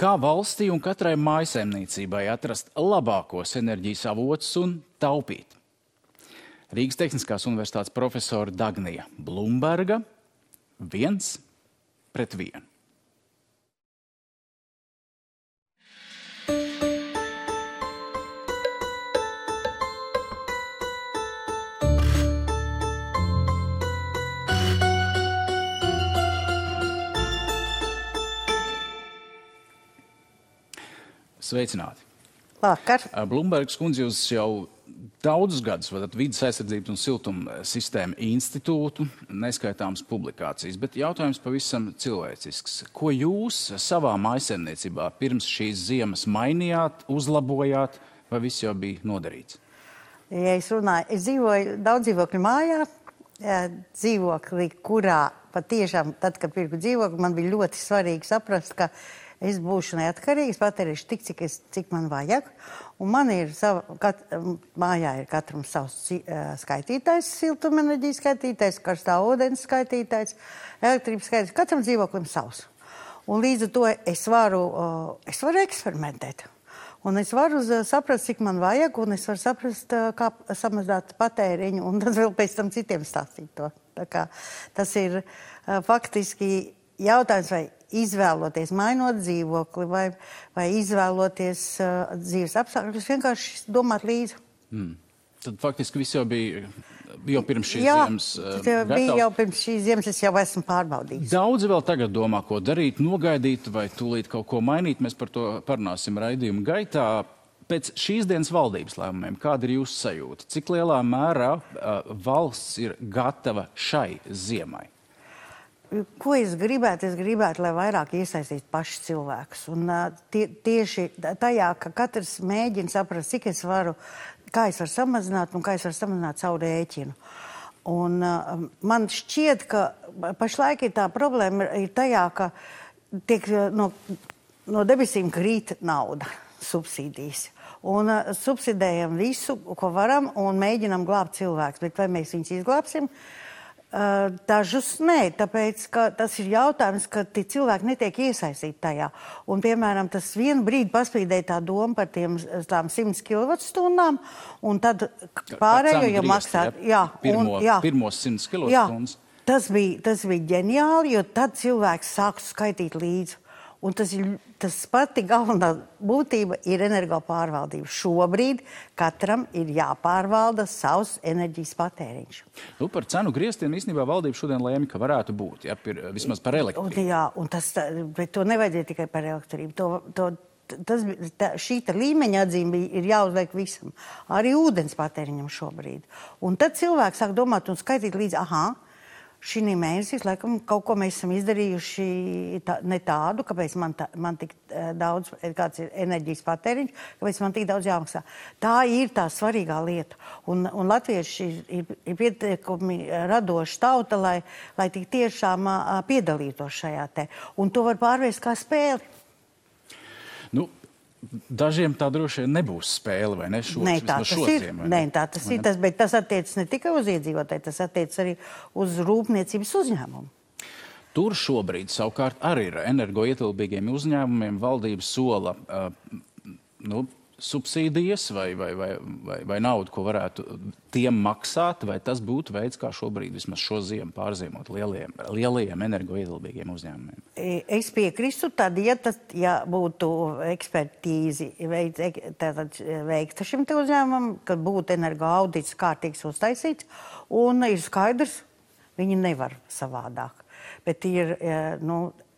Kā valstī un katrai mājsaimniecībai atrast labākos enerģijas avotus un taupīt? Rīgas Tehniskās universitātes profesora Dagnija Blumberga 1-1. Sveicināti. Vakar. Blumbergas kundze, jūs jau daudzus gadus vadat Vides aizsardzības un siltuma sistēmu institūtu, neskaitāmas publikācijas, bet jautājums pavisam cilvēcisks. Ko jūs savā mājsaimniecībā pirms šīs ziemas mainījāt, uzlabojāt, vai viss jau bija nodarīts? Ja es dzīvoju daudz dzīvokļu mājā, dzīvokli, kurā patiešām, tad, kad pirku dzīvokli, man bija ļoti svarīgi saprast, ka es būšu neatkarīgs, patērīšu tik, cik man vajag. Un man ir mājā ir katram savs skaitītājs, siltumenerģijas skaitītājs, karstā ūdens skaitītājs, elektrības skaitītājs, katram dzīvoklim savs. Un līdz ar to es varu eksperimentēt. Un es varu saprast, cik man vajag, un es varu saprast, kā samazināt patēriņu, un tad vēl pēc tam citiem stāstīt to. Tā kā tas ir faktiski jautājums, vai izvēloties, mainot dzīvokli, vai izvēloties dzīves apstākļus, vienkārši domāt līdzi. Tad faktiski viss jau bija jau pirms šīs ziemas gatavs. Bija jau pirms šīs ziemas, es jau esmu pārbaudījis. Daudzi vēl tagad domā, ko darīt, nogaidīt vai tūlīt kaut ko mainīt. Mēs par to parunāsim raidījuma gaitā. Pēc šīs dienas valdības lēmumiem, kāda ir jūsu sajūta? Cik lielā mērā valsts ir gatava šai ziemai? Ko es gribētu? Es gribētu, lai vairāk iesaistītu paši cilvēkus. Un tieši tajā, ka katrs mēģina saprast, cik es varu, kā es varu samazināt un kā es varu samazināt savu rēķinu. Un man šķiet, ka pašlaik ir tā problēma ir tajā, ka tiek no debesīm krīt nauda, subsīdijas. Un subsidējam visu, ko varam, un mēģinam glābt cilvēkus. Bet vai mēs viņus izglābsim? Dažus nē, tāpēc, ka tas ir jautājums, ka tie cilvēki netiek iesaistīti tajā. Un, piemēram, tas vienu brīdi paspīdēja tā doma par tām 100 kWh, un tad pārējo jau maksāt. Pirmos 100 kWh. Tas bija ģeniāli, jo tad cilvēks sāktu skaitīt līdzi. Un tas pati galvenā būtība ir energopārvaldība. Šobrīd katram ir jāpārvalda savs enerģijas patēriņš. Par cenu grieztiem īstenībā valdība šodien lēma, ka varētu būt, vismaz par elektrību. Bet to nevajadzēja tikai par elektrību. Šī līmeņa atzīme ir jāuzliek visam. Arī ūdens patēriņam šobrīd. Un tad cilvēks sāk domāt un skaitīt līdzi, šī mēnesī, laikam, kaut ko mēs esam izdarījuši ne tādu, kāpēc man tik daudz, kāds ir enerģijas patēriņš, kāpēc man tik daudz jāmaksā. Tā ir tā svarīgā lieta. Un latvieši ir pietiekami radoši tauta, lai tik tiešām piedalītos šajā te. Un to var pārvērst kā spēli. Dažiem tā droši vien nebūs spēle, vai ne? Tā tas ir, bet tas attiecas ne tikai uz iedzīvotāju, tas attiecas arī uz rūpniecības uzņēmumu. Tur šobrīd savukārt arī ir energoietilpīgiem uzņēmumiem valdība sola subsīdijas vai naudu, ko varētu tiem maksāt, vai tas būtu veids, kā šobrīd vismaz šo ziemu pārziemot lielajiem energoietilpīgiem uzņēmumiem? Es piekristu, tad, ja būtu ekspertīzi veikta šim te uzņēmumam, kad būtu energoaudits kārtīgs uztaisīts, un ir skaidrs, viņi nevar savādāk. Bet ir,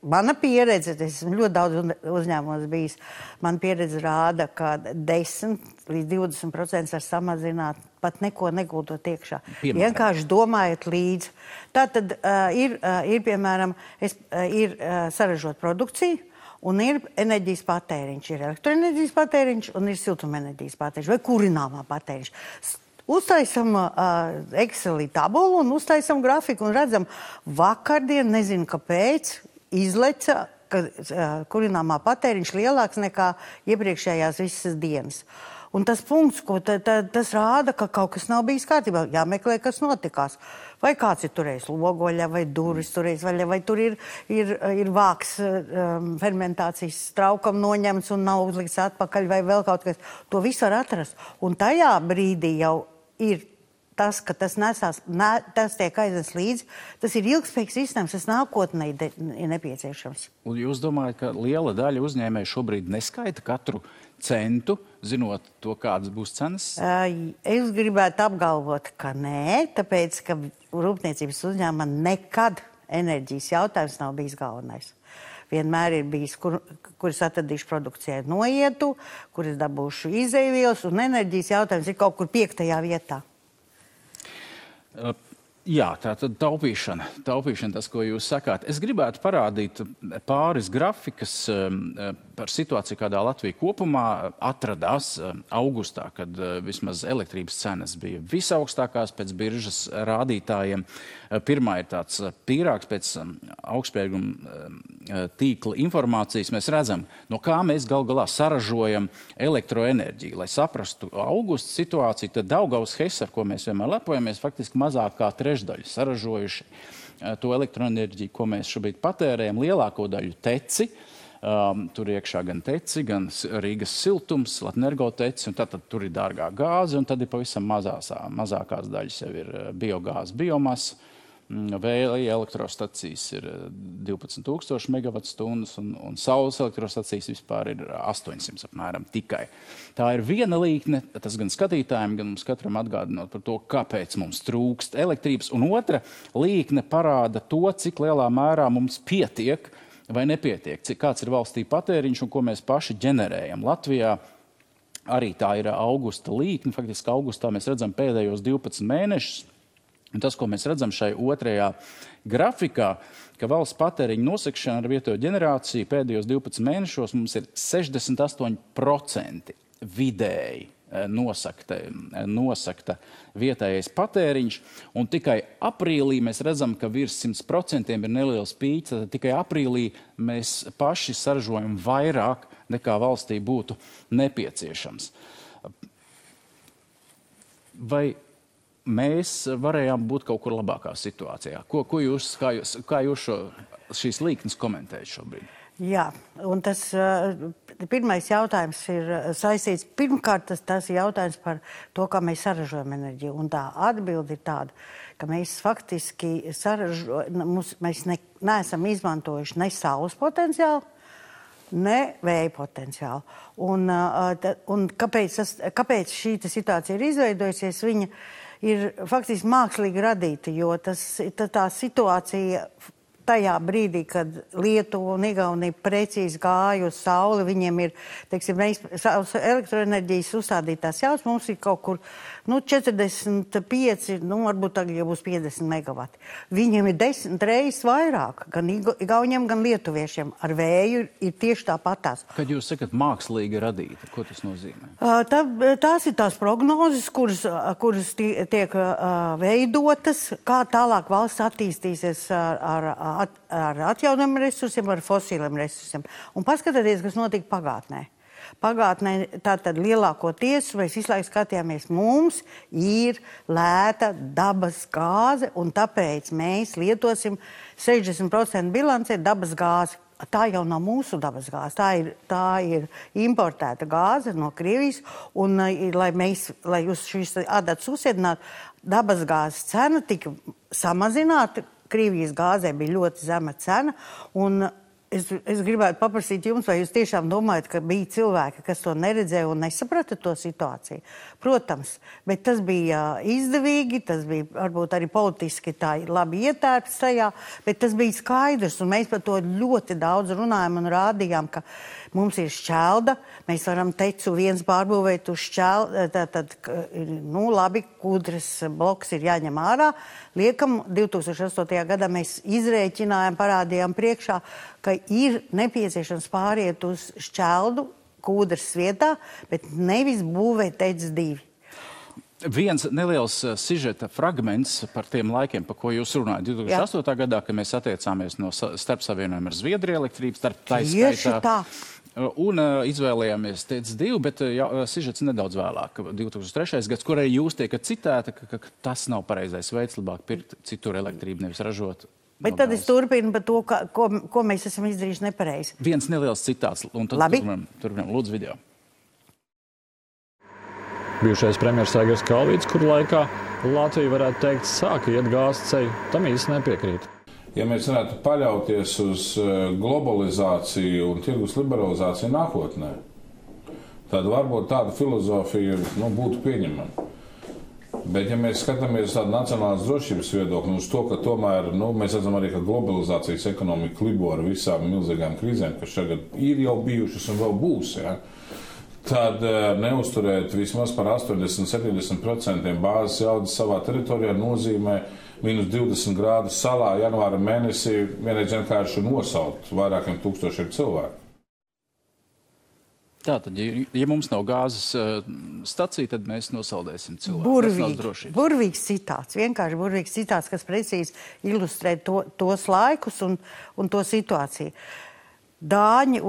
mana pieredze, es esmu ļoti daudz uzņēmumos bijis, mana pieredze rāda, ka 10 līdz 20% var samazināt, pat neko negūtot iekšā. Vienkārši domājot līdzi. Tātad ir piemēram, ir saražot produkciju, un ir enerģijas patēriņš. Ir elektroenerģijas patēriņš un ir siltumenerģijas patēriņš vai kurināmā patēriņš. Uztaisam Excelī tabulu un uztaisam grafiku un redzam, vakardien, nezinu kāpēc, izleca, ka kurināmā patēriņš lielāks nekā iepriekšējās visas dienas. Un tas punkts, tas rāda, ka kaut kas nav bijis kārtībā. Jāmeklē, kas notikās. Vai kāds ir turējis logoļa, vai durvis turējis, vai tur ir vāks fermentācijas traukam noņemts un nav uzlikts atpakaļ, vai vēl kaut kas. To visu var atrast. Un tajā brīdī jau ir tas, ka tas tas tiek aiznes līdzi, tas ir ilgspējīgs risinājums, tas nākotnē ir nepieciešams. Un jūs domājat, ka liela daļa uzņēmēju šobrīd neskaita katru centu, zinot to, kādas būs cenas? Es gribētu apgalvot, ka nē, tāpēc, ka rūpniecības uzņēmumā nekad enerģijas jautājums nav bijis galvenais. Vienmēr ir bijis, kuras atradīšu produkcijai noietu, kuras dabūšu izēvielas, un enerģijas jautājums ir kaut kur 5. vietā. Jā, tā tad taupīšana, tas, ko jūs sakāt. Es gribētu parādīt pāris grafikas par situāciju, kādā Latvija kopumā atradās augustā, kad vismaz elektrības cenas bija visaugstākās pēc biržas rādītājiem. Pirmā ir tāds pīrāgs pēc augstspējīguma tīkla informācijas. Mēs redzam, no kā mēs gal galā saražojam elektroenerģiju. Lai saprastu augusta situāciju, tad Daugavas HES, ar ko mēs vienmēr lepojamies, faktiski mazāk kā trešdaļu saražojuši to elektroenerģiju, ko mēs šobrīd patērējam, lielāko daļu teci. Tur iekšā gan teci, gan Rīgas siltums, Latnergo teci, un tad tur ir dārgā gāze, un tad ir pavisam mazākās daļas jau ir biogāze, biomasa. Vēja elektrostacijas ir 12,000 megawatstundas, un saules elektrostacijas vispār ir 800 apmēram tikai. Tā ir viena līkne, tas gan skatītājiem, gan mums katram atgādinot par to, kāpēc mums trūkst elektrības, un otra līkne parāda to, cik lielā mērā mums pietiek vai nepietiek, kāds ir valstī patēriņš un ko mēs paši ģenerējam. Latvijā arī tā ir augusta līkne, faktiski augustā mēs redzam pēdējos 12 mēnešus. Un tas, ko mēs redzam šai otrajā grafikā, ka valsts patēriņa nosakšana ar vietējo ģenerāciju pēdējos 12 mēnešos mums ir 68% vidēji nosakta vietējais patēriņš, un tikai aprīlī mēs redzam, ka virs 100% ir neliels pīķis, tad tikai aprīlī mēs paši saražojam vairāk nekā valstī būtu nepieciešams. Vai mēs varējām būt kaut kur labākā situācijā? Kā jūs šīs līknes komentējat šobrīd? Jā, un tas pirmais jautājums ir saistīts. Pirmkārt, tas ir jautājums par to, kā mēs saražojam enerģiju. Un tā atbilde ir tāda, ka mēs faktiski mēs neesam izmantojuši ne saules potenciālu, ne vēja potenciālu. Un kāpēc šī situācija ir izveidojusies? Viņa ir faktiski mākslīgi radīta, jo tā situācija tajā brīdī, kad Lietuva un Igaunija precīzi gāja uz sauli, viņiem ir, teiksim, elektroenerģijas uzstādītās jaudas, mums ir kaut kur 45, varbūt tagad jau būs 50 megavati. Viņiem ir 10 reizes vairāk, gan igauņiem, gan lietuviešiem. Ar vēju ir tieši tāpatās. Kad jūs sakat mākslīgi radīta, ko tas nozīmē? Tās ir tās prognozes, kuras tiek veidotas, kā tālāk valsts attīstīsies ar atjaunojumiem resursiem, ar fosīliem resursiem. Un paskatieties, kas notika pagātnē. Pagātnē tātad lielākoties mēs visu laiku skatījāmies, mums ir lēta dabas gāze, un tāpēc mēs lietosim 60% bilancē dabas gāzi. Tā jau nav mūsu dabas gāze, tā ir importēta gāze no Krievijas, un lai jūs šīs adatas uzsēdinātu, dabas gāzes cena tika samazināta, Krievijas gāzē bija ļoti zema cena, un es gribētu paprasīt jums, vai jūs tiešām domājat, ka bija cilvēki, kas to neredzēja un nesaprata to situāciju? Protams, bet tas bija izdevīgi, tas bija varbūt arī politiski tā labi ietērpts tajā, bet tas bija skaidrs, un mēs par to ļoti daudz runājam un rādījām, ka mums ir šķelda, mēs varam tecu viens pārbūvēt uz šķelda, tad, labi, Kūdras bloks ir jāņem ārā. Liekam, 2008. gadā mēs izrēķinājām, parādījām priekšā, ka ir nepieciešams pāriet uz šķeldu Kūdras vietā, bet nevis būvēt TEC 2. Viens neliels sižeta fragments par tiem laikiem, par ko jūs runājat. 2008. gadā, kad mēs attiecāmies no starpsavienojuma ar Zviedriju elektrības, Un izvēlējāmies TEC2, bet sižets nedaudz vēlāk, 2003. gads, kur arī jūs tiekat citēta, ka tas nav pareizais veids, labāk pirkt citur elektrību, nevis ražot. Bet tad es turpinu par to, ko mēs esam izdarījuši nepareizi. Viens neliels citāts, un tad turpinām lūdzu video. Bijušais premjers Aigars Kalvīts, kuru laikā Latvija varētu teikt sāka iet gāzes ceļu, tam īsti nepiekrīt. Ja mēs varētu paļauties uz globalizāciju un tirgus liberalizāciju nākotnē, tad varbūt tāda filozofija būtu pieņemama. Bet, ja mēs skatāmies tādu nacionālās drošības viedokli uz to, ka tomēr mēs redzam arī, ka globalizācijas ekonomika libo ar visām milzīgām krīzēm, kas šagad ir jau bijušas un vēl būs, tad neuzturēt vismaz par 80–70% bāzes jaudas savā teritorijā nozīmē minus 20 grādus salā janvāra mēnesī vienreiz vienkārši nosaukt vairākiem tūkstošiem cilvēku. Tātad, ja mums nav gāzes stacija, tad mēs nosaldēsim cilvēku. Burvīgs citāts, vienkārši burvīgs citāts, kas precīzi ilustrē tos laikus un to situāciju. Dāņi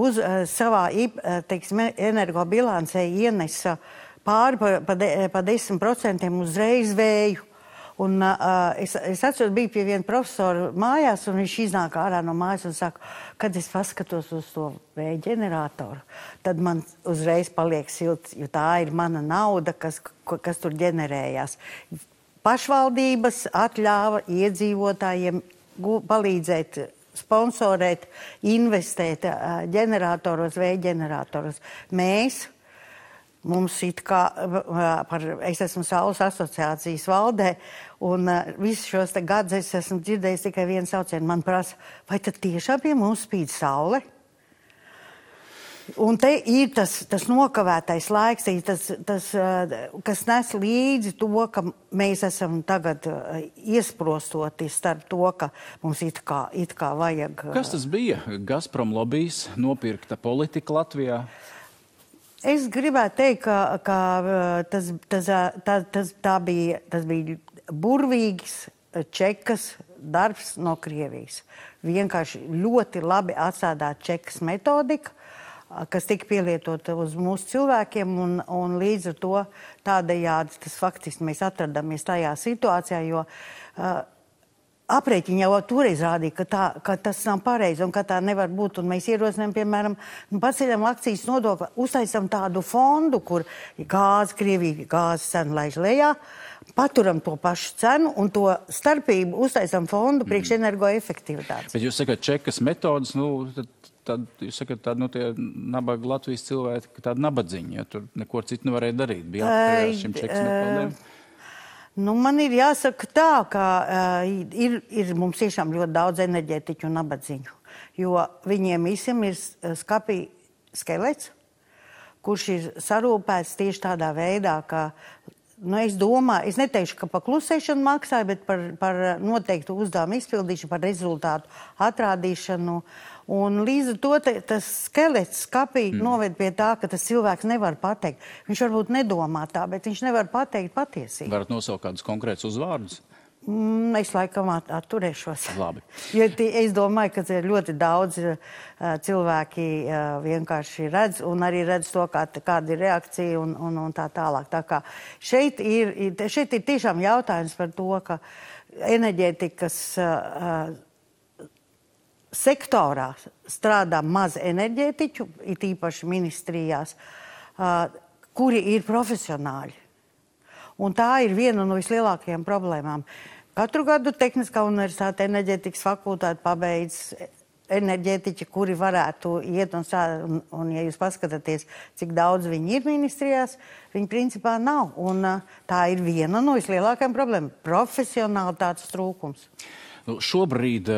savā energobilancē ienesa pāri pa 10% uzreiz vēju. Un es atceros, biju pie viena profesora mājās, un viņš iznāk ārā no mājas un saka, kad es paskatos uz to vēja ģeneratoru, tad man uzreiz paliek silts, jo tā ir mana nauda, kas tur ģenerējās. Pašvaldības atļāva iedzīvotājiem palīdzēt sponsorēt, investēt ģeneratoros, vēja ģeneratoros. Mums es esmu Saules asociācijas valdē, un visus šos gadus es esmu dzirdējis tikai vienu saucienu. Man prasa, vai tad tiešām pie mums spīd saule? Un te ir tas nokavētais laiks, kas nes līdzi to, ka mēs esam tagad iesprostoti starp to, ka mums it kā vajag... Kas tas bija? Gazprom lobijs, nopirkta politika Latvijā? Es gribētu teikt, ka tas bija burvīgs čekas darbs no Krievijas. Vienkārši ļoti labi atsādāt čekas metodika, kas tika pielietota uz mūsu cilvēkiem, un līdz ar to tādējādi tas faktiski mēs atradamies tajā situācijā, jo aprēķini jau toreiz rādīja, ka tas nav pareizi un ka tā nevar būt, un mēs ierosinām, piemēram, paceļam akcijas nodokli, uztaisam tādu fondu, kur Krievija gāzes cenu laiž lejā, paturam to pašu cenu un to starpību uztaisam fondu priekš energoefektivitātes. Bet jūs sakat, čekas metodas, tad jūs sakat, tie nabaga Latvijas cilvēki, tādi nabadziņi, ja tur neko citu nevarēja darīt, bija atkarējās šim čekas metodēm? Man ir jāsaka tā, ka ir mums tiešām ļoti daudz enerģētiķu un nabadziņu, jo viņiem visiem ir skapī skelets, kurš ir sarūpēts tieši tādā veidā, ka, es domāju, es neteikšu, ka pa klusēšanu maksāju, bet par noteiktu uzdevumu izpildīšanu, par rezultātu atrādīšanu. Un līdz ar to tas skelets skapī noved pie tā, ka tas cilvēks nevar pateikt. Viņš varbūt nedomā tā, bet viņš nevar pateikt patiesību. Varat nosaukt kādus konkrētus uzvārdus? Es laikam atturēšos. Labi. Jo es domāju, ka ļoti daudz cilvēki vienkārši redz un arī redz to, kāda ir reakcija un tā tālāk. Tā kā šeit ir tiešām jautājums par to, ka enerģētikas sektorā strādā maz enerģētiķu, it īpaši ministrijās, kuri ir profesionāļi. Un tā ir viena no vislielākajām problēmām. Katru gadu Tehniskā universitāte enerģētikas fakultāte pabeidz enerģētiķi, kuri varētu iet un ja jūs paskatāties, cik daudz viņi ir ministrijās, viņi principā nav. Un tā ir viena no vislielākajām problēmām - profesionālitātes trūkums. Šobrīd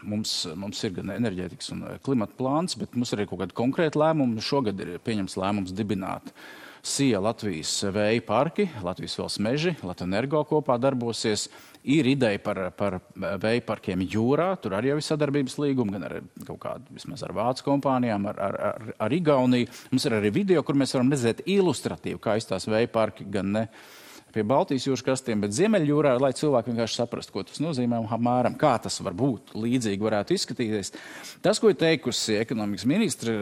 mums ir gan enerģētikas un klimata plāns, bet mums ir arī kaut kādi konkrēti lēmumi. Šogad ir pieņems lēmums dibināt SIA Latvijas vēja parki, Latvijas valsts meži, Latvenergo kopā darbosies. Ir ideja par vēja parkiem jūrā, tur arī jau ir sadarbības līguma, gan ar kaut kādu, vismaz ar vācu kompānijām, ar Igauniju. Mums ir arī video, kur mēs varam redzēt ilustratīvi, kā izstās vēja parki, gan ne pie Baltijas jūras krastiem, bet Ziemeļjūrā, lai cilvēki vienkārši saprastu, ko tas nozīmē un apmēram, kā tas var būt, līdzīgi varētu izskatīties. Tas, ko ir teikusi ekonomikas ministre,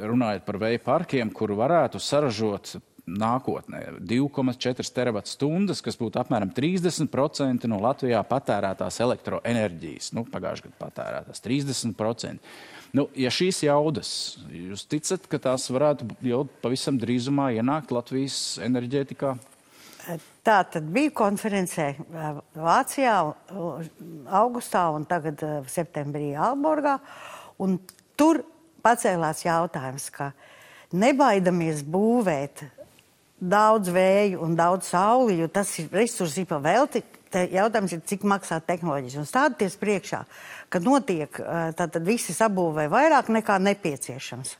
runājot par vēja parkiem, kur varētu saražot nākotnē 2,4 terawatstundas, kas būtu apmēram 30% no Latvijā patērētās elektroenerģijas. Pagājušajā gadā patērētās 30%. Ja šīs jaudas, jūs ticat, ka tās varētu jau pavisam drīzumā ienākt Latvijas enerģētikā? Tā tad bija konferencē Vācijā augustā un tagad septembrī Aalborgā. Un tur pacēlās jautājums, ka nebaidamies būvēt daudz vēju un daudz sauli, jo tas ir resursi pa velti. Jautājums ir, cik maksā tehnoloģijas. Un stāties priekšā, ka notiek, tad visi sabūvē vairāk nekā nepieciešams.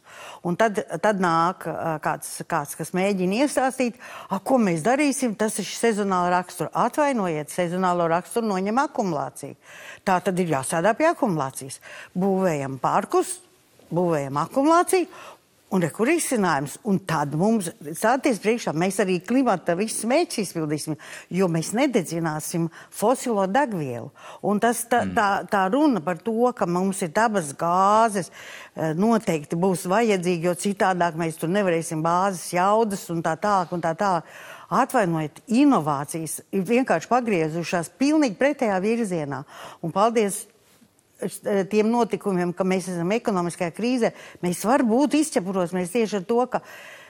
Un tad nāk kāds, kas mēģina iestāstīt, ko mēs darīsim, tas ir sezonāla rakstura. Atvainojiet, sezonālo raksturu noņem akumulāciju. Tā tad ir jāsādā pie akumulācijas. Būvējam parkus, būvējam akumulāciju, un kur izcinājums. Un tad mums stāties priekšā, mēs arī klimata visus mērķus izpildīsim, jo mēs nededzināsim fosilo degvielu. Un tā runa par to, ka mums ir dabas gāzes, noteikti būs vajadzīgi, jo citādāk mēs tur nevarēsim bāzes jaudas un tā tālāk un tā tālāk. Atvainojiet, inovācijas ir vienkārši pagriezušās pilnīgi pretējā virzienā. Un paldies tiem notikumiem, ka mēs esam ekonomiskajā krīzē, mēs varbūt izķepuros, mēs tieši ar to, ka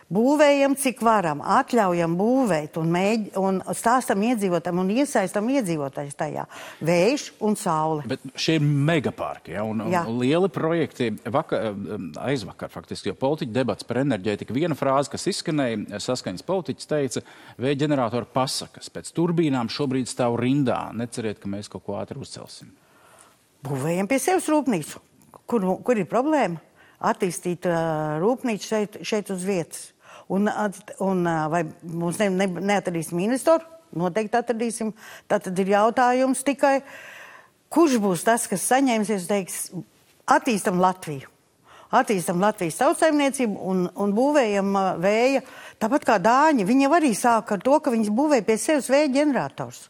būvējam, cik varam, atļaujam būvēt un stāstam iedzīvotājiem un iesaistam iedzīvotājus tajā. Vējš un saule. Bet šie ir megaparki, un lieli projekti. Aizvakar faktiski, jo politiķi debats par enerģētiku. Viena frāze, kas izskanēja, saskaņas politiķis teica, vēja ģeneratoru pasakas. Pēc turbīnām šobrīd stāv rindā. Neceriet, ka mēs kaut ko ātri uzcelsim. Būvējam pie sevis rūpnīcu. Kur ir problēma? Attīstīt rūpnīcu šeit uz vietas. Un vai mums neatradīsim investoru? Noteikti atradīsim. Tātad ir jautājums tikai, kurš būs tas, kas saņemsies, teiks, attīstam Latviju. Attīstam Latvijas tautsaimniecību un būvējam vēja. Tāpat kā dāņi, viņi arī sāk ar to, ka viņi būvēja pie sevis vēja ģenerators.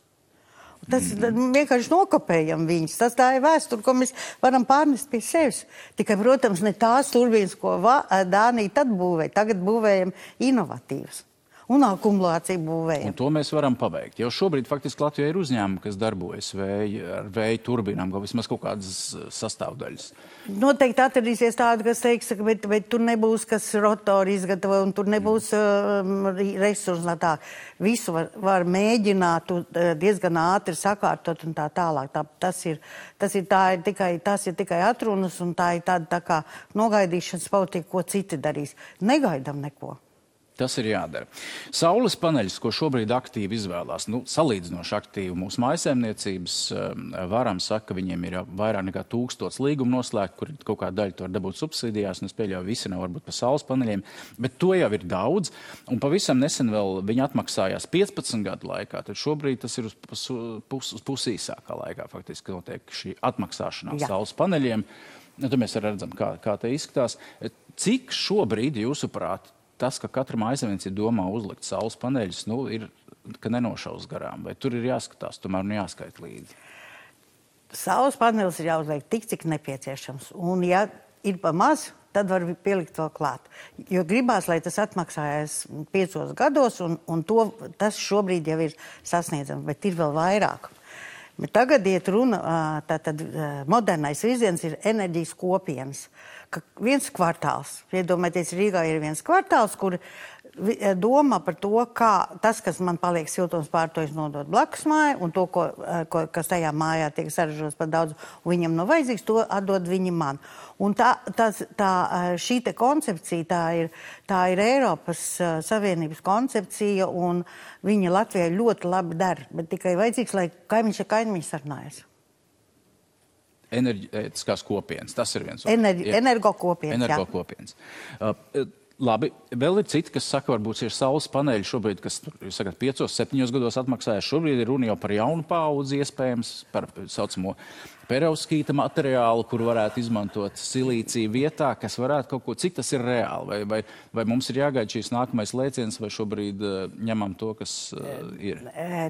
Tas vienkārši nokopējam viņus. Tā ir vēsture, ko mēs varam pārnest pie sevis. Tikai, protams, ne tās turbīnas, ko Dānija tad būvēja. Tagad būvējam inovatīvas. Un akumulāciju būvējam. Un to mēs varam pabeigt. Jau šobrīd faktiski Latvijā ir uzņēmumi, kas darbojas ar vēja turbīnām, vismaz kaut kādas sastāvdaļas. Noteikti atradīsies tādi, kas teiks, bet tur nebūs, kas rotori izgatavo, un tur nebūs resursi. Visu var mēģināt diezgan ātri sakārtot un tā tālāk. Tas ir tikai atrunas, un tā ir tāda tā kā nogaidīšanas politika, ko citi darīs. Negaidam neko. Tas ir jādara. Saules paneļus, ko šobrīd aktīvi izvēlās, salīdzinoši aktīvi mūsu mājsaimniecības, varam saka, ka viņiem ir vairāk nekā 1000 līgumu noslēgt, kur kaut kā daļa to var dabūt subsīdijās, un es pieļauju, visi nav varbūt par saules paneļiem, bet to jau ir daudz, un pavisam nesen vēl viņi atmaksājās 15 gadu laikā, tad šobrīd tas ir uz pusīsākā laikā, faktiski notiek šī atmaksāšanās saules paneļiem. Tad mēs redzam, kā te izskatās. Cik šobrīd, jūsuprāt, tas, ka katra mājsaimniecība domā uzlikt saules paneļus, ir, ka nenošaus garām, vai tur ir jāskatās, tomēr jāskait līdzi? Saules paneļus ir jāuzliek tik, cik nepieciešams. Un ja ir pa maz, tad var pielikt vēl klāt. Jo gribās, lai tas atmaksājas 5 gados, un tas šobrīd jau ir sasniedzams, bet ir vēl vairāk. Bet tagad iet runa, tātad modernais virziens ir enerģijas kopienas. Ka viens kvartāls, iedomājieties, Rīgā ir viens kvartāls, kur domā par to, kā tas, kas man paliek siltums pārtojas, nodot blakus māju, un to, kas tajā mājā tiek saražots par daudz, un viņam nav vajadzīgs, to atdod viņi man. Un šī te koncepcija, tā ir Eiropas Savienības koncepcija, un viņa Latvijai ļoti labi dara, bet tikai vajadzīgs, lai kaimiņš ar kaimiņu sarunājas. Enerģētiskās kopienas, tas ir viens. Energokopienas, Energokopienas. Labi, vēl ir citi, kas saka, varbūt ir saules paneļi šobrīd, kas, jūs sakat, 5-7 gados atmaksājas. Šobrīd ir runa jau par jaunu paudzi iespējams, par saucamo perovskīta materiālu, kur varētu izmantot silīciju vietā, kas varētu kaut ko, cik tas ir reāli, vai mums ir jāgaida šīs nākamais lēciens, vai šobrīd ņemam to, kas ir?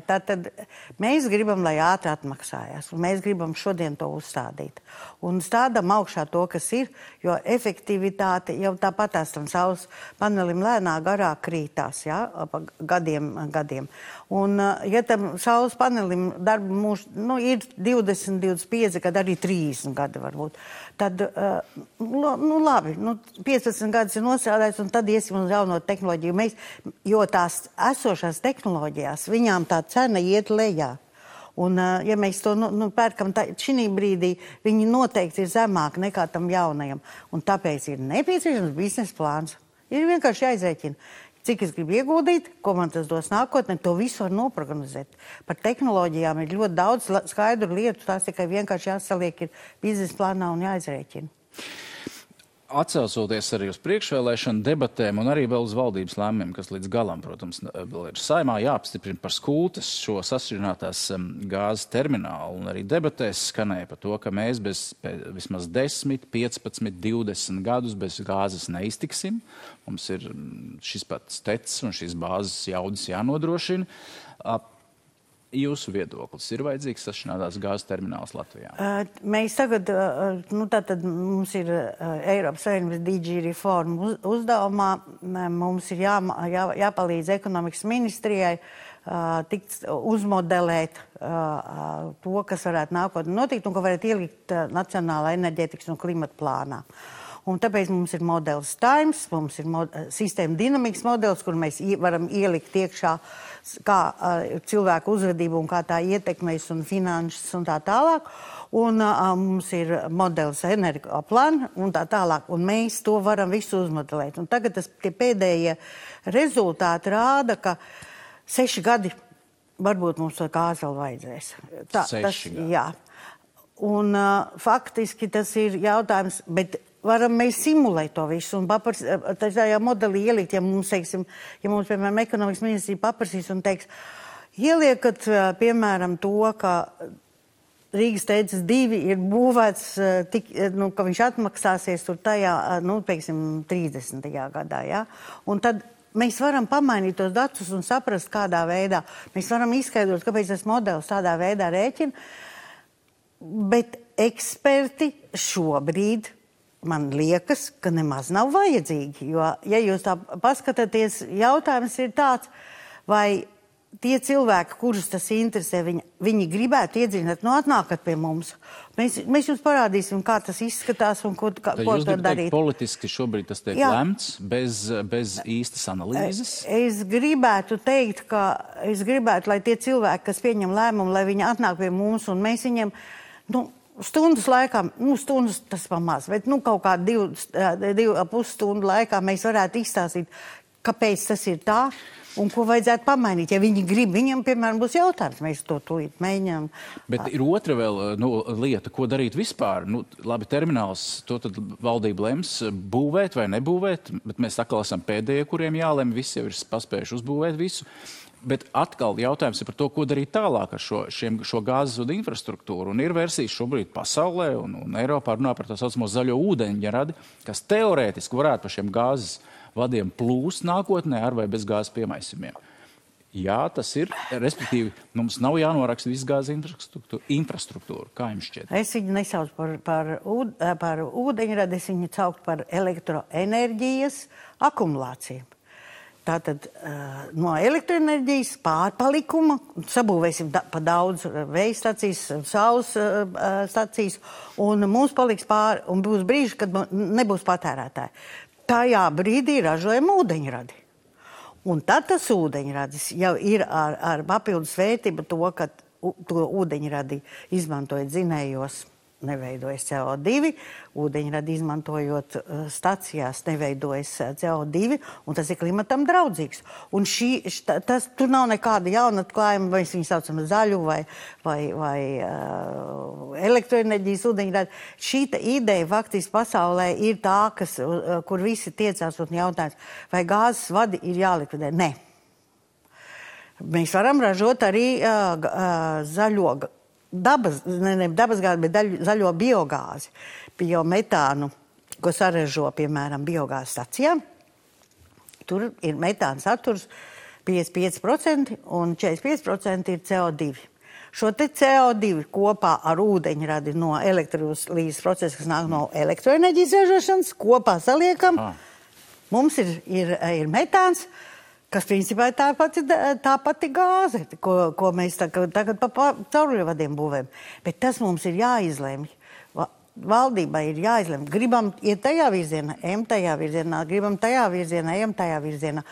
Tātad mēs gribam, lai ātri atmaksājās, un mēs gribam šodien to uzstādīt. Un stādam augšā to, kas ir, jo efektivitāte jau tāpatās tam saules panelim lēnā garāk krītās, ja, pa gadiem. Un, ja tam saules panelim darba mūžs, ir 20, 25, kad arī 30 gadi varbūt, tad, labi, 15 gadus ir nostrādājis, un tad iesim uz jauno tehnoloģiju. Jo tās esošās tehnoloģijās, viņām tā cena iet lejā. Un, ja mēs to pērkam, šī brīdī viņi noteikti ir zemāk nekā tam jaunajam. Un tāpēc ir nepieciešams biznesa plāns. Ir vienkārši jāizrēķina, cik es gribu ieguldīt, ko man tas dos nākotnē, to visu var noprognozēt. Par tehnoloģijām ir ļoti daudz skaidru lietu, tās tikai vienkārši jāsaliek ir biznesa plānā un jāizrēķina. Atcaucoties arī uz priekšvēlēšanu debatēm un arī vēl uz valdības lēmumiem, kas līdz galam, protams, vēl ir Saeimā jāapstiprina par Skultes šo sašķidrinātās gāzes terminālu, un arī debatēs skanēja par to, ka mēs vismaz 10, 15, 20 gadus bez gāzes neiztiksim. Mums ir šis pats tecis un šīs bāzes jaudas jānodrošina. Jūsu viedoklis ir vajadzīgs sašķidrinātās gāzes termināls Latvijā? Mēs tagad, tātad mums ir Eiropas Savienības DG reforma uzdevumā, mums ir jāpalīdz ekonomikas ministrijai tikt uzmodelēt to, kas varētu nākotnē notikt un ko varētu ielikt Nacionālā enerģētikas un klimata plānā. Un tāpēc mums ir modelis Times, mums ir sistēma dinamikas modelis, kur mēs varam ielikt iekšā kā cilvēku uzvedību un kā tā ietekmēs un finanses un tā tālāk. Un mums ir modelis energoplāna un tā tālāk. Un mēs to varam visu uzmodelēt. Un tagad tie pēdējie rezultāti rāda, ka 6 gadi varbūt mums to gāzi vēl vajadzēs. 6 gadi? Jā. Un faktiski tas ir jautājums, bet varam mēs simulēt to visu un tajā modelī ielikt, ja mums, piemēram, ekonomikas ministrija paprasīs un teiks, ieliekat, piemēram, to, ka Rīgas teicis 2 ir būvēts, ka viņš atmaksāsies tur tajā, 30. gadā, ja? Un tad mēs varam pamainīt tos datus un saprast, kādā veidā. Mēs varam izskaidrot, kāpēc tas modelis tādā veidā rēķina, bet eksperti šobrīd man liekas, ka nemaz nav vajadzīgi, jo, ja jūs tā paskatāties, jautājums ir tāds, vai tie cilvēki, kurus tas interesē, viņi gribētu iedziļināt, atnākat pie mums. Mēs jums parādīsim, kā tas izskatās un ko to darīt. Jūs gribat teikt, politiski šobrīd tas tiek lemts bez īstas analīzes? Es gribētu teikt, lai tie cilvēki, kas pieņem lēmumu, lai viņi atnāk pie mums un mēs viņiem, stundas laikā, stundas tas pamaz, bet kaut kā 2,5 stundu laikā mēs varētu izstāstīt, kāpēc tas ir tā un ko vajadzētu pamainīt. Ja viņi grib, viņam, piemēram, būs jautājums, mēs to tūlīt mēģinām. Bet ir otra vēl lieta, ko darīt vispār. Labi, termināls, to tad valdība lems būvēt vai nebūvēt, bet mēs atkal esam pēdējie, kuriem jālem, visi jau ir paspējuši uzbūvēt visu. Bet atkal jautājums ir par to, ko darīt tālāk ar šo gāzes vadu infrastruktūru. Un ir versijas šobrīd pasaulē un Eiropā runā par tā saucamo zaļo ūdeņradi, kas teorētiski varētu par šiem gāzes vadiem plūst nākotnē ar vai bez gāzes piemaisumiem. Jā, tas ir, respektīvi, mums nav jānoraksta viss gāzes infrastruktūra. Kā jums šķiet? Es viņu nesaucu par ūdeņradi, es viņu saucu par elektroenerģijas akumulāciju. Tātad no elektroenerģijas pārpalikuma sabūvēsim pa daudz vēja stacijas, saules stacijas, un mums paliks pāri, un būs brīži, kad nebūs patērētāji. Tajā brīdī ražojam ūdeņradi. Un tad tas ūdeņradis jau ir ar papildus vērtību to, ka to ūdeņradi izmantojot dzinējos neveidojas CO2, ūdeņradi izmantojot stacijās neveidojas CO2, un tas ir klimatam draudzīgs. Un tur nav nekāda jauna atklājuma, vai viņu saucam zaļu vai elektroenerģijas ūdeņradi. Šī ideja faktiski pasaulē ir tā, kur visi tiecās un jautājums, vai gāzes vadi ir jālikvidē. Nē. Mēs varam ražot arī zaļo dabasgāzi, bet zaļo biogāzi, biometānu, ko saražo, piemēram, biogāzes stacijām. Tur ir metāna saturs 55% un 45% ir CO2. Šo te CO2 kopā ar ūdeņradi no elektrolīzes procesa, kas nāk no elektroenerģijas ražošanas, kopā saliekam. Mums ir metāns, kas principā ir tā pati gāze, ko mēs tagad pa cauruļvadiem būvējam. Bet tas mums ir jāizlemj. Valdībai ir jāizlemj. Gribam iet tajā virzienā, ejam tajā virzienā, gribam tajā virzienā, ejam tajā virzienā.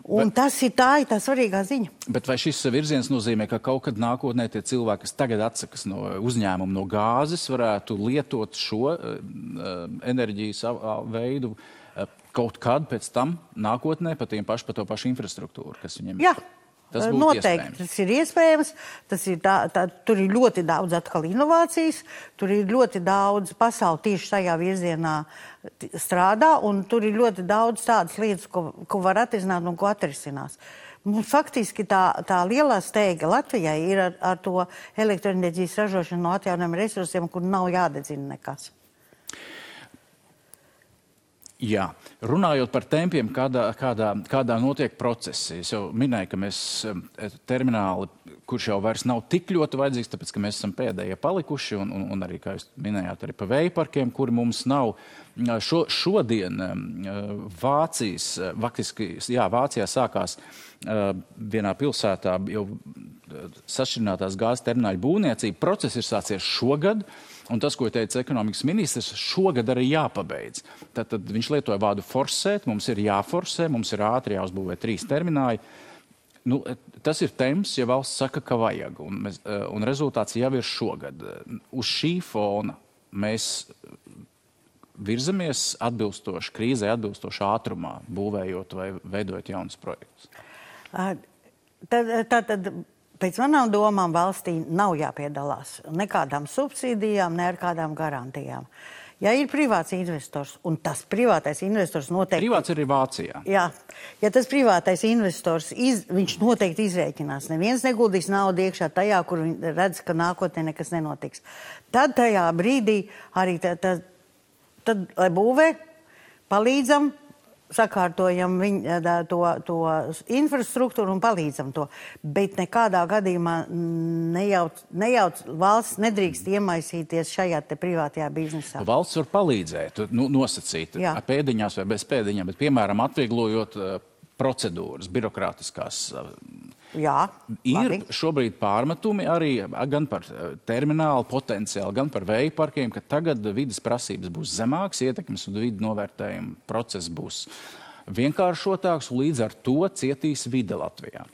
Un tā ir tā svarīgā ziņa. Bet vai šis virziens nozīmē, ka kaut kad nākotnē tie cilvēki, kas tagad atsakas no uzņēmuma, no gāzes, varētu lietot šo enerģijas veidu kaut kad pēc tam nākotnē pa to pašu infrastruktūru, kas viņiem ir? Jā, tas būtu noteikti. Tas ir iespējams. Tur ir ļoti daudz atkal inovācijas, tur ir ļoti daudz pasauli tieši tajā virzienā strādā, un tur ir ļoti daudz tādas lietas, ko var atrisināt un ko atrisinās. Mums faktiski tā lielā steiga Latvijai ir ar to elektroenerģijas ražošanu no atjaunojumiem resursiem, kur nav jādedzina nekas. Jā, runājot par tempiem, kādā notiek procesi. Es jau minēju, ka mēs termināli, kurš jau vairs nav tik ļoti vajadzīgs, tāpēc, ka mēs esam pēdējie palikuši, un arī, kā jūs minējāt, arī pa vējparkiem, kuri mums nav. Šodien Vācijā sākās vienā pilsētā jau sašķirinātās gāzes termināļu būvniecība. Process ir sācies šogad. Un tas, ko teica ekonomikas ministrs, šogad arī jāpabeidz. Tad viņš lietoja vārdu forsēt, mums ir jāforsē, mums ir ātri jāuzbūvē 3 termināļi. Tas ir temps, ja valsts saka, ka vajag, un rezultāts jau ir šogad. Uz šī fona mēs virzamies atbilstoši krīzē, atbilstoši ātrumā, būvējot vai veidojot jaunus projektus. Tad pēc manām domām valstī nav jāpiedalās nekādām subsīdijām, ne ar kādām garantijām. Ja ir privāts investors, un tas privātais investors noteikti... Privāts arī Vācijā. Jā. Ja tas privātais investors, viņš noteikti izrēķinās. Neviens neguldīs naudu iekšā tajā, kur viņi redz, ka nākotnē nekas nenotiks. Tad tajā brīdī arī lai būvē, palīdzam, sakārtojam to infrastruktūru un palīdzam to. Bet nekādā gadījumā nejauc valsts nedrīkst iemaisīties šajā te privātajā biznesā. Valsts var palīdzēt, nosacīt ar pēdiņās vai bez pēdiņām, bet, piemēram, atvieglojot procedūras, birokrātiskās. Jā, ir šobrīd pārmetumi arī gan par terminālu potenciālu, gan par vēju parkiem, ka tagad vides prasības būs zemāks, ietekmes un vidu novērtējuma process būs vienkāršotāks, un līdz ar to cietīs vide Latvijā.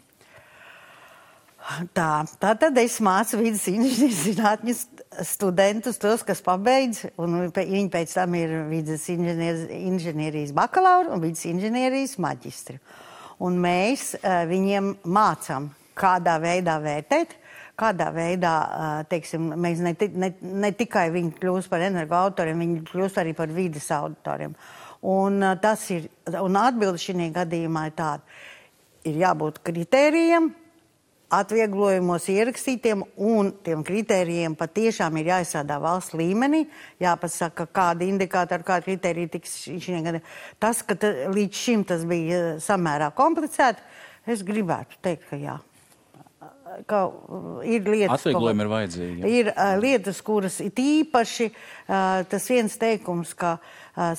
Tātad es mācu vides inženierzinātņu studentus, tos, kas pabeidz, un viņi pēc tam ir vides inženierijas bakalauri un vides inženierijas maģistri. Un mēs viņiem mācām, kādā veidā vērtēt, kādā veidā, teiksim, mēs ne tikai viņi kļūst par energoautoriem, viņi kļūst arī par vides autoriem. Un atbilde šī gadījumā ir tāda. Ir jābūt kritērijiem, atvieglojumos ierakstītiem, un tiem kritērijiem patiešām ir jāizstrādā valsts līmenī, jāpasaka, kādi indikātori, kādi kritēriji tiks šī gadījumā. Tas, ka līdz šim tas bija samērā komplicēti, es gribētu teikt, ka jā. Ka ir lietas, atvieglojumi ir vajadzīgi. Ir lietas, kuras ir īpaši tas viens teikums, ka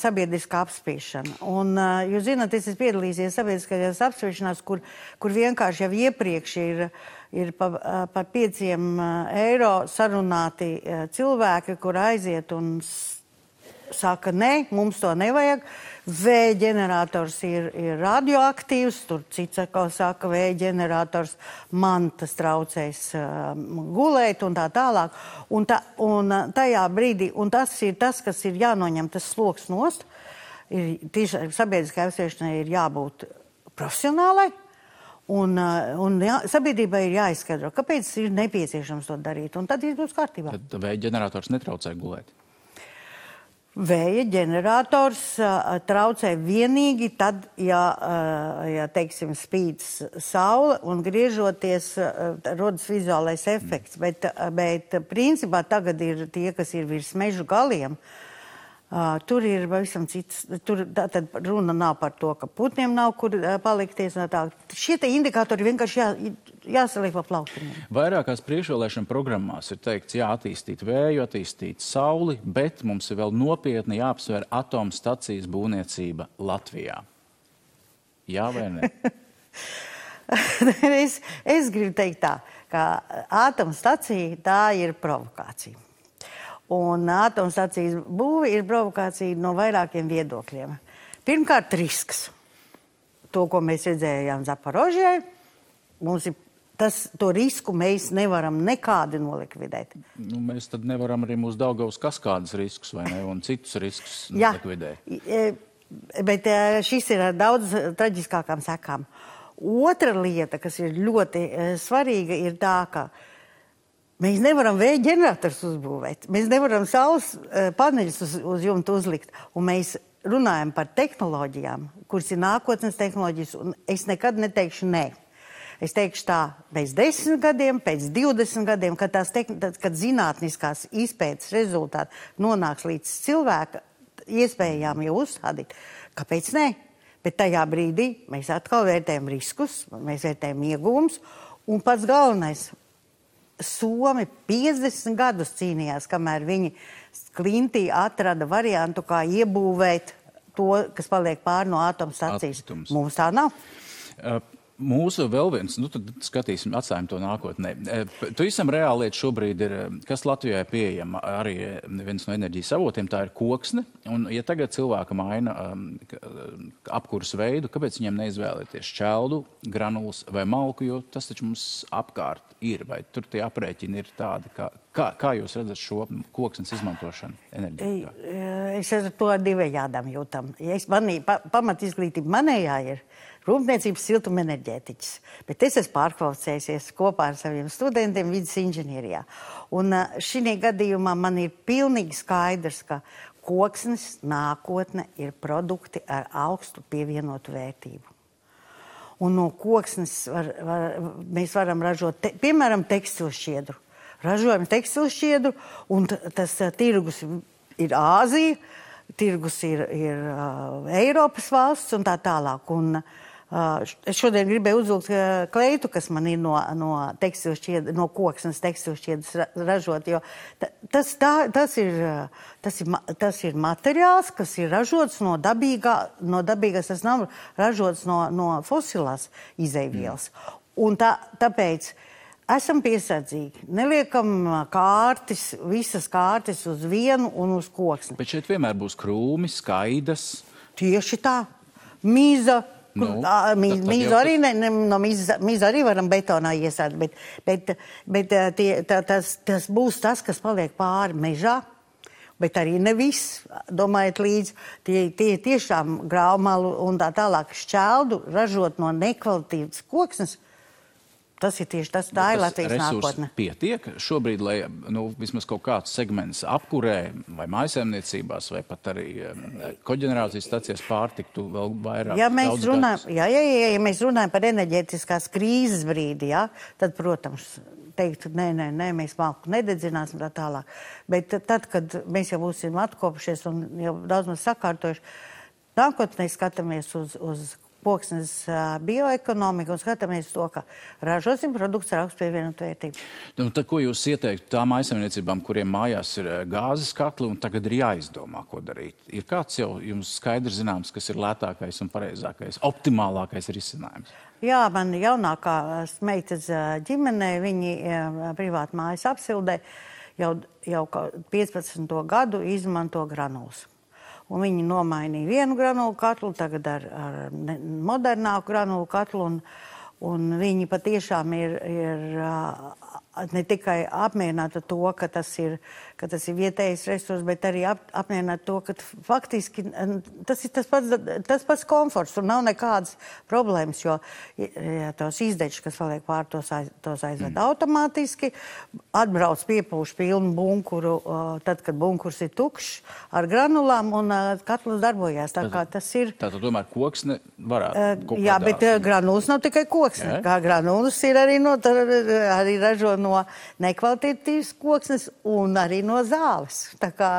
sabiedriskā apspriešana. Un, jūs zināt, es esmu piedalījies sabiedriskajās apspriešanās, kur vienkārši jau iepriekš ir par 5 eiro sarunāti cilvēki, kur aiziet un saka, nē, mums to nevajag. Vēja ģenerators ir radioaktīvs, tur cits atkal saka, vēja ģenerators man tas traucēs gulēt un tā tālāk. Un tajā brīdī, un tas ir tas, kas ir jānoņem tas sloks nost, tieši sabiedriskai apspriešanai ir jābūt profesionālai. Un sabiedrībai ir jāizskaidro, kāpēc ir nepieciešams to darīt, un tad viss būs kārtībā. Tad vēja ģenerators netraucē gulēt? Vēja ģenerators traucē vienīgi tad, ja teiksim, spīd saule un griežoties rodas vizuālais efekts, bet principā tagad ir tie, kas ir virs mežu galiem. Tur ir pavisam cits, tad runa nav par to, ka putniem nav kur palikties. Šie te indikatori vienkārši jāsaliek pa plauktiņiem. Vairākās priekšvēlēšana programmās ir teikts, attīstīt vēju, attīstīt sauli, bet mums ir vēl nopietni jāapsver atomstacijas būvniecība Latvijā. Jā vai ne? Es gribu teikt tā, ka atomstacija tā ir provokācija. Un atomstacijas būve ir provokācija no vairākiem viedokļiem. Pirmkārt, risks. To, ko mēs redzējām Zaporožijai, to risku mēs nevaram nekādi nolikvidēt. Mēs tad nevaram arī mūsu Daugavas kaskādas riskus, vai ne, un citus riskus nolikvidēt. Bet šis ir ar daudz traģiskākām sekām. Otra lieta, kas ir ļoti svarīga, ir tā, ka mēs nevaram vēja ģenerators uzbūvēt. Mēs nevaram saules paneļus uz jumta uzlikt. Un mēs runājam par tehnoloģijām, kuras ir nākotnes tehnoloģijas, un es nekad neteikšu nē. Es teikšu tā, pēc 10 gadiem, pēc 20 gadiem, kad zinātniskās izpētes rezultāti nonāks līdz cilvēka iespējām jau uzstādīt. Kāpēc nē? Bet tajā brīdī mēs atkal vērtējam riskus, mēs vērtējam ieguvumus, un pats galvenais – Somi 50 gadus cīnījās, kamēr viņi Klintī atrada variantu, kā iebūvēt to, kas paliek pāri no atomstacijas. Mums tā nav. Mūsu vēl viens, tad skatīsim, atstājam to nākotnē. Pavisam reāli lieta šobrīd ir, kas Latvijā ir pieejama arī viens no enerģijas avotiem, tā ir koksne. Un ja tagad cilvēka maina apkuras veidu, kāpēc viņiem neizvēlēties šķeldu, granulas vai malku, jo tas taču mums apkārt ir, vai tur tie aprēķini ir tādi, kā jūs redzat šo koksnes izmantošanu enerģijā? Es ar to divējādām jūtam. Pamat izglītība manējā ir rūpniecības siltuma enerģētiķis, bet es esmu pārkvalificējusies kopā ar saviem studentiem vidas inženierijā. Un šī gadījumā man ir pilnīgi skaidrs, ka koksnes nākotne ir produkti ar augstu pievienotu vērtību. Un no koksnes mēs varam ražot, piemēram, tekstilšķiedru. Ražojam tekstilšķiedru, un tas tirgus ir Āzija, tirgus ir Eiropas valsts un tā tālāk. Un es šodien gribēju uzvilkt kleitu, kas man ir no koksnes tekstilšķiedras ražot, jo tas ir materiāls, kas ir ražots no dabīgās, tas nav ražots no fosilās izeivielas. Un tāpēc esam piesardzīgi. Neliekam visas kārtis uz vienu un uz koksni. Bet šeit vienmēr būs krūmi, skaidas. Tieši tā. Mīza. Mīzu arī varam betonā iesēt, bet tas būs tas, kas paliek pāri mežā, bet arī ne viss. Domājiet līdzi, tie tiešām graumalu un tā tālāk šķeldu ražot no nekvalitīvas koksnes. Tas ir tieši tas, tā ir Latvijas nākotne. Pietiek šobrīd, lai vismaz kaut kāds segments apkurē vai mājsaimniecībās vai pat arī koģenerācijas stacijās pārtiktu vēl vairāk daudz gadus? Ja mēs runājam par enerģētiskās krīzes brīdi, tad, protams, teikt, nē, mēs malku nededzināsim tā tālāk. Bet tad, kad mēs jau būsim atkopušies un jau daudz mums sakārtojuši, nākotnē skatāmies uz koksnes bioekonomiku un skatāmies to, ka ražosim produkts ar augstu pievienotu vērtību. Tad, ko jūs ieteiktu tām mājsaimniecībām, kuriem mājās ir gāzes katli un tagad ir jāizdomā, ko darīt? Ir kāds jau jums skaidrs zināms, kas ir lētākais un pareizākais, optimālākais risinājums? Jā, man jaunākā meitas ģimenē, viņi privāti mājas apsildē jau 15. gadu izmanto granulas. un viņi nomainīja vienu granulu katlu, tagad ar modernāku granulu katlu, un viņi patiešām ir ne tikai apmierināti to, ka tas ir vietējais resurs, bet arī apmierināti to, ka faktiski tas ir tas pats komforts, un nav nekādas problēmas, jo tos izdečus, kas paliek pār, tos aizved automātiski, atbrauc piepūš pilnu bunkuru, tad, kad bunkurs ir tukšs, ar granulām, un katls darbojās. Tā kā tas ir... Tātad tomēr koksne varētu kaut jā, bet granulas nav tikai koksne. Kā granulas ir arī ražo no nekvalitatīvas koksnes un arī no zāles. Tā kā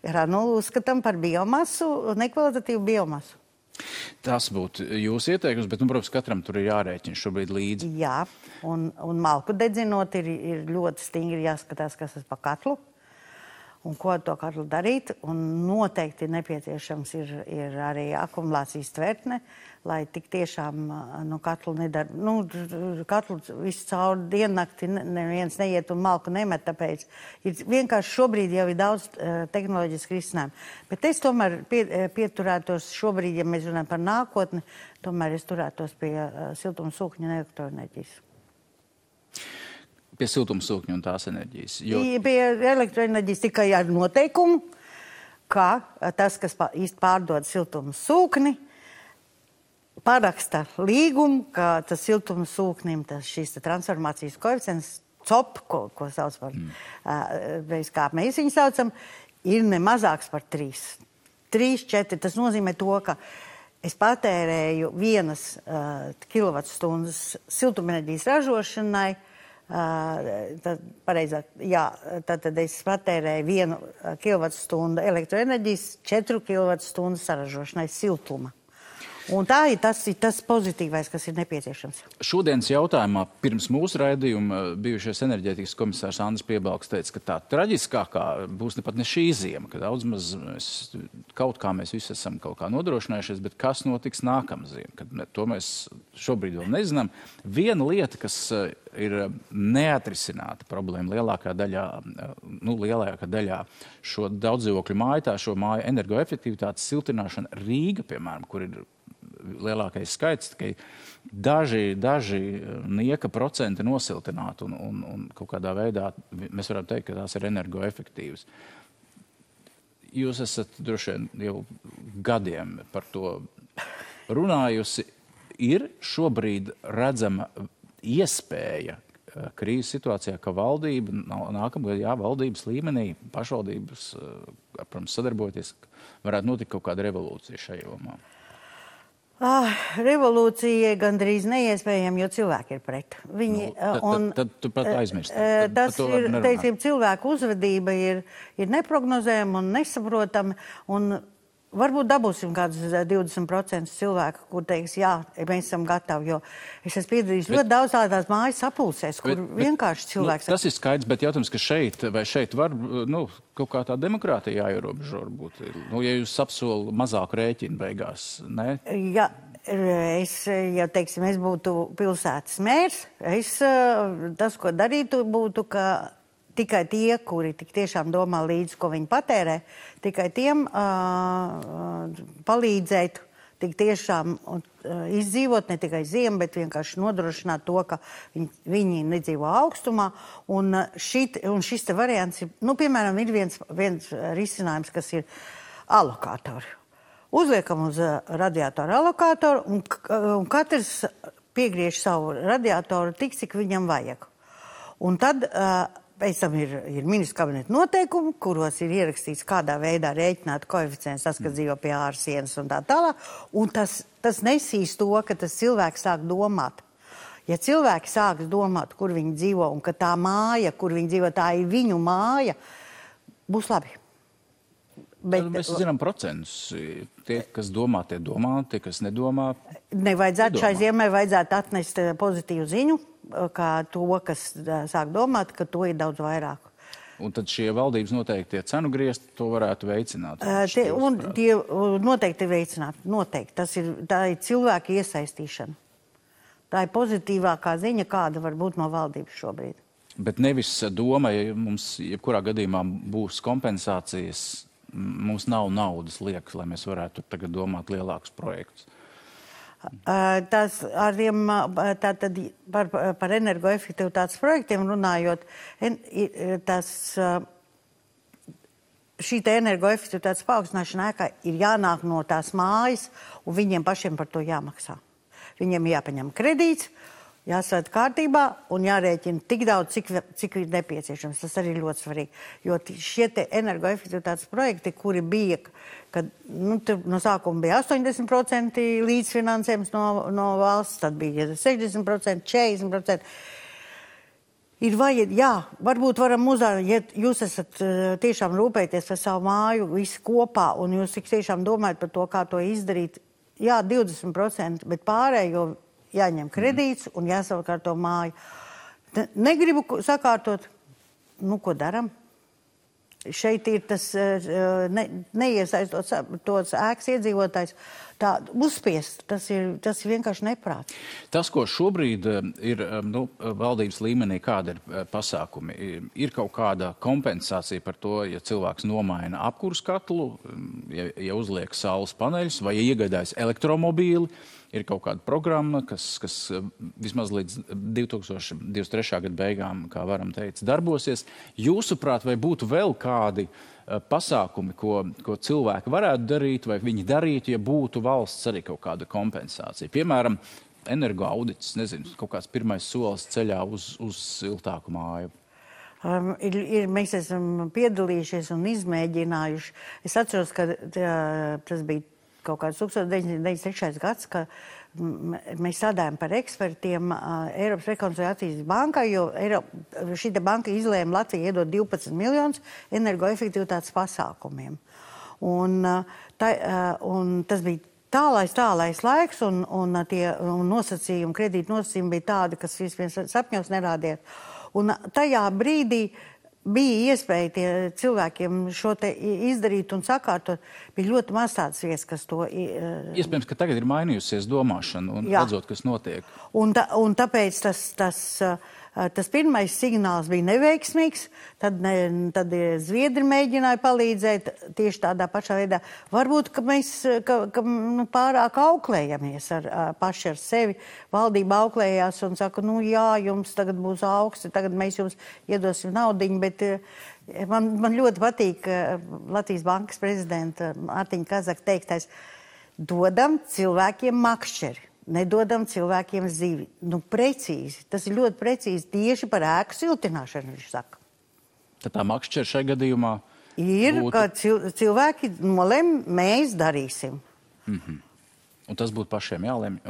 granulu uzskatām par biomasu, nekvalitatīvu biomasu. Tas būtu jūsu ieteikums, bet, protams, katram tur ir jārēķina šobrīd līdzi. Jā, un malku dedzinot ir ļoti stingri jāskatās, kas tas pa katlu un ko to katlu darīt. Un noteikti nepieciešams ir arī akumulācijas tvertne, lai tik tiešām katlu nedara. Katlu visu cauri diennakti neviens neiet un malku nemet, tāpēc vienkārši šobrīd jau ir daudz tehnoloģiski risinājumu. Bet es tomēr pieturētos šobrīd, ja mēs runājam par nākotni, tomēr es turētos pie siltumsūkņu un elektroenerģijas. Pie siltumsūkņu un tās enerģijas. Pie elektroenerģijas tikai ar noteikumu, ka tas, kas pārdod siltumsūkni, paraksta līgumu, ka tas siltumsūknim, šīs transformācijas koeficients, COP, ko sauc par, kā mēs viņu saucam, ir ne mazāks par 3. 3, 4, tas nozīmē to, ka es patērēju 1 kilovatstundas siltumenerģijas ražošanai, tad es patērēju 1 kilovatstundu elektroenerģijas, 4 kilovatstundu saražošanai siltuma. Un tā ir tas pozitīvais, kas ir nepieciešams. Šodienas jautājumā pirms mūsu raidījuma bijušais enerģētikas komisārs Andris Piebalgs teica, ka tā traģiskākā būs ne šī ziema, ka daudz maz kaut kā mēs visi esam kaut kā nodrošinājušies, bet kas notiks nākamā ziema, to mēs šobrīd vēl nezinām. Viena lieta, kas ir neatrisināta problēma lielākā daļā šo daudzdzīvokļu māju, šo māju energoefektivitātes siltināšana Rīga, piemēram, kur ir lielākais skaits, tikai daži nieka procenti nosiltināti un kaut kādā veidā mēs varam teikt, ka tās ir energoefektīvas. Jūs esat droši vien jau gadiem par to runājusi. Ir šobrīd redzama iespēja krīzes situācijā, ka valdība, nākamgad, valdības līmenī, pašvaldības, protams, sadarboties, varētu notikt kaut kāda revolūcija šajā jomā? Revolūcija gandrīz neiespējama, jo cilvēki ir pret. Tad tu pat aizmirsti. Tas ir, teiksim, cilvēku uzvedība ir neprognozējama un nesaprotama, un varbūt dabūsim kādus 20% cilvēku, kur teiks, jā, mēs esam gatavi, jo es esmu piedalījis ļoti daudz tādās mājas sapulcēs, kur vienkārši cilvēks... Tas ir skaidrs, bet jautājums, ka šeit var, kaut kā tā demokrātija jāierobežo varbūt. Ja jūs apsolu mazāku rēķinu beigās, ne? Jā, es būtu pilsētas mērs, tas, ko darītu, būtu, ka tikai tie, kuri tik tiešām domā līdzi, ko viņi patērē, tikai tiem palīdzēt tik tiešām izdzīvot ne tikai ziemu, bet vienkārši nodrošināt to, ka viņi nedzīvo augstumā. Un šis te variants ir, piemēram, ir viens risinājums, kas ir alokātori. Uzliekam uz radiatoru alokātoru un katrs piegriež savu radiatoru tik, cik viņam vajag. Un tad pēc tam ir ministru kabineta noteikumi, kuros ir ierakstīts, kādā veidā rēķināt koeficients, tas, kas dzīvo pie ārsienas un tā tālāk. Un tas nesīs to, ka tas cilvēks sāk domāt. Ja cilvēki sāks domāt, kur viņi dzīvo un ka tā māja, kur viņi dzīvo, tā ir viņu māja, būs labi. Bet mēs zinām procentus. Tie, kas domā, tie domā, tie, kas nedomā. Nevajadzētu šai ziemai vajadzētu atnest pozitīvu ziņu, kā to, kas sāk domāt, ka to ir daudz vairāk. Un tad šie valdības noteikti cenu griezt, to varētu veicināt. Tie noteikti veicināt. Noteikti. Tā ir cilvēka iesaistīšana. Tā ir pozitīvākā ziņa, kāda var būt no valdības šobrīd. Bet nevis doma, ja mums jebkurā gadījumā būs kompensācijas mums nav naudas liekas, lai mēs varētu tagad domāt lielākus projektus? Tas ar tiem, tātad par energoefektivitātes projektiem runājot, šī energoefektivitātes paaugstināšana ēkā ir jānāk no tās mājas, un viņiem pašiem par to jāmaksā. Viņiem jāpaņem kredīts, jāsvērt kārtībā un jārēķina tik daudz, cik ir nepieciešams. Tas arī ir ļoti svarīgi. Jo šie te energoefektivitātes projekti, kuri bija, kad no sākuma bija 80% līdzfinansējums no valsts, tad bija 60%, 40%. Varbūt varam ja jūs esat tiešām rūpēties par savu māju visi kopā un jūs tik tiešām domājat par to, kā to izdarīt, 20%, bet pārējo jāņem kredīts un jāsakārto māju. Negribu sakārtot, ko daram? Šeit ir tas neiesaistot tos ēkas iedzīvotājs. Tā uzspiest, tas ir vienkārši neprāts. Tas, ko šobrīd ir valdības līmenī, kāda ir pasākumi, ir kaut kāda kompensācija par to, ja cilvēks nomaina apkurs katlu, ja uzliek saules paneļus vai ja iegādājas elektromobīli, ir kaut kāda programma, kas vismaz līdz 2023. Gada beigām, kā varam teikt, darbosies. Jūsuprāt, vai būtu vēl kādi pasākumi, ko cilvēki varētu darīt, vai viņi darītu, ja būtu valsts arī kaut kāda kompensācija? Piemēram, energoaudits, nezinu, kaut kāds pirmais solis ceļā uz siltāku māju. Mēs esam piedalījušies un izmēģinājuši. Es atceros, ka tas bija kaut kāds 1993. gads, ka mēs strādājam par ekspertiem Eiropas rekonstrukcijas bankai, jo šī banka izlēma Latviju iedot 12 miljonus energoefektivitātes pasākumiem. Un tas bija tālais laiks, un nosacījumi, kredīta nosacījumi bija tādi, kas vispirms sapņos nerādījās. Un tajā brīdī bija iespēja cilvēkiem šo te izdarīt un sakārtot. Bija ļoti maz tāds vietas, kas to... Iespējams, ka tagad ir mainījusies domāšana un redzot, kas notiek. Un tāpēc tas pirmais signāls bija neveiksmīgs, tad Zviedri mēģināja palīdzēt tieši tādā pašā veidā. Varbūt, ka mēs pārāk auklējamies paši ar sevi. Valdība auklējās un saka, jums tagad būs augsti, tagad mēs jums iedosim naudiņu, bet man ļoti patīk Latvijas bankas prezidenta Mārtiņa Kazaka teiktais, dodam cilvēkiem makšķeri. Nedodam cilvēkiem zivi. Precīzi. Tas ir ļoti precīzi tieši par ēku siltināšanu, viņš saka. Tad tā makšķera šai gadījumā ir, ka cilvēki nolem, mēs darīsim. Un tas būtu pašiem jālemj.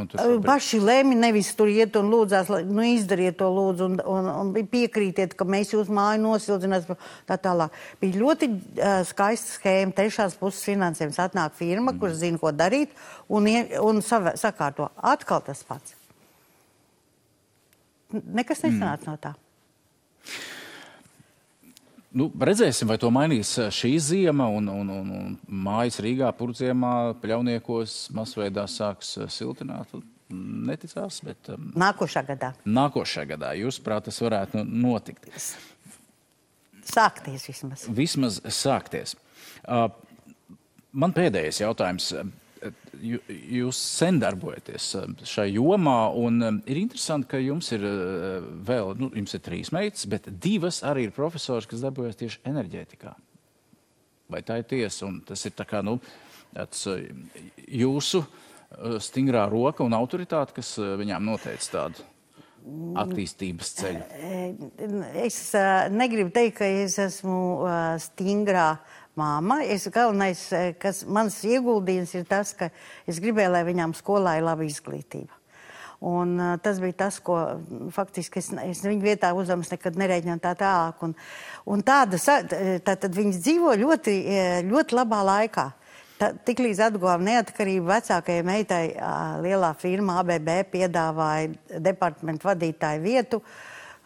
Paši lemj, nevis tur iet un lūdzās, izdariet to lūdzu un piekrītiet, ka mēs jūs māju nosildzināsim tā tālāk. Bija ļoti skaista schēma, trešās puses finansējums. Atnāk firma, kurš zina, ko darīt un sakārto. Atkal tas pats. Nekas nesanāca no tā. Redzēsim, vai to mainīs šī ziema un mājas Rīgā, Purdziemā, Pļauniekos masveidā sāks siltināt. Neticās, bet... Nākošā gadā. Nākošā gadā. Jūsuprāt, tas varētu notikt. Sākties vismaz. Vismaz sākties. Man pēdējais jautājums. Jūs sen darbojaties šai jomā, un ir interesanti, ka jums ir vēl, jums ir 3 meitas, bet 2 arī ir profesori, kas darbojas tieši enerģētikā. Vai tā ir tiesa? Un tas ir tā kā, jūsu stingrā roka un autoritāte, kas viņām noteica tādu attīstības ceļu? Es negribu teikt, ka es esmu stingrā māma. Galvenais, kas mans ieguldījums ir tas, ka es gribēju, lai viņām skolā ir laba izglītība. Un tas bija tas, ko faktiski es viņu vietā uzdevums nekad nerēģināju tā tālāk. Un tātad viņas dzīvo ļoti, ļoti labā laikā. Tiklīdz atguvām neatkarību, vecākajai meitai lielā firma ABB piedāvāja departamentu vadītāju vietu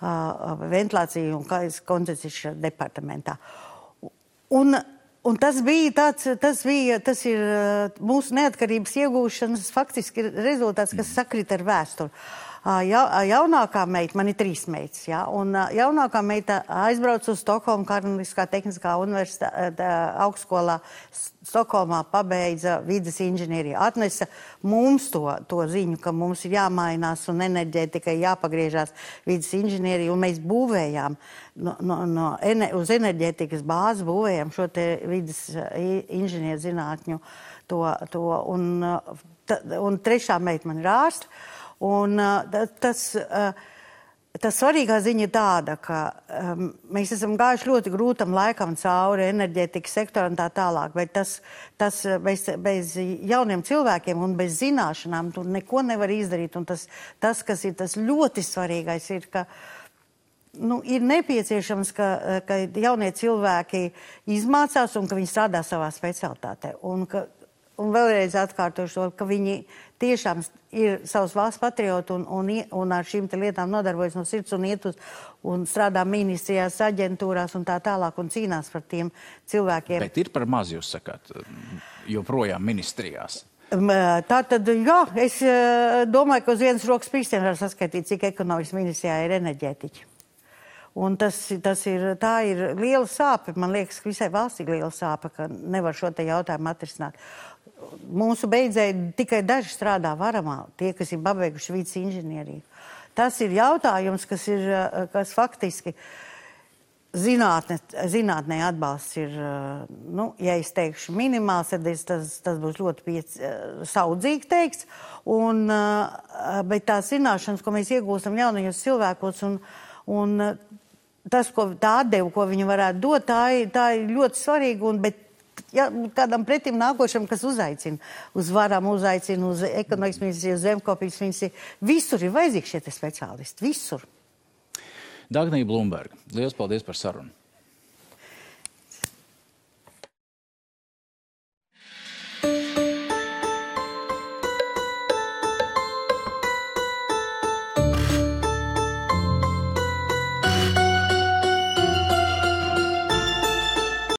ventilāciju un koncepcijas departamentā. Un tas ir mūsu neatkarības iegūšanas faktiski rezultāts, kas sakrita ar vēsturi. Jaunākā meita, man ir 3 meitas, ja, un jaunākā meita aizbrauc uz Stokholmu Karaliskā tehniskā universitāte augstskolā Stokholmā, pabeidza vides inženieriju. Atnesa mums to ziņu, ka mums ir jāmainās un enerģētikai jāpagriežās vides inženieriju, un mēs būvējām uz enerģētikas bāzes būvējām šo te vides inženieru zinātņu un 3. meita man ir ārsta. Un tas svarīgā ziņa ir tāda, ka mēs esam gājuši ļoti grūtam laikam cauri enerģētikas sektoram un tā tālāk, bet tas bez jauniem cilvēkiem un bez zināšanām tu neko nevar izdarīt. Un tas, kas ir tas ļoti svarīgais, ir, ka ir nepieciešams, ka jaunie cilvēki izmācās un ka viņi strādā savā specialitātē. Un vēlreiz atkārtošu to, ka viņi tiešām ir savas valsts patrioti un ar šīm te lietām nodarbojas no sirds un iet un strādā ministrijās, aģentūrās un tā tālāk un cīnās par tiem cilvēkiem. Bet ir par maz, jūs sakāt, joprojām ministrijās? Tātad, jā, es domāju, ka uz vienas rokas pirkstiem var saskaitīt, cik ekonomikas ministrijā ir enerģētiķi. Un tā ir liela sāpe, man liekas, ka visai valstī liela sāpe, ka nevar šo te jautājumu atrisināt. Mūsu beidzēji tikai daži strādā varamā, tie, kas ir pabeiguši vides inženieriju. Tas ir jautājums, kas faktiski zinātnē atbalsts ir, ja es teikšu minimāls, tad tas būs ļoti saudzīgi teikts, bet tās zināšanas, ko mēs iegūstam jaunajos cilvēkos un tas, tā atdeva, ko viņi varētu dot, tā ir ļoti svarīga, bet kādam pretim nākošam, kas uzaicina, uz varam uzaicina, uz ekonomikas ministriju, uz zemkopības ministriju, visur ir vajadzīgi šie speciālisti, visur. Dagnija Blumberga, liels paldies par sarunu.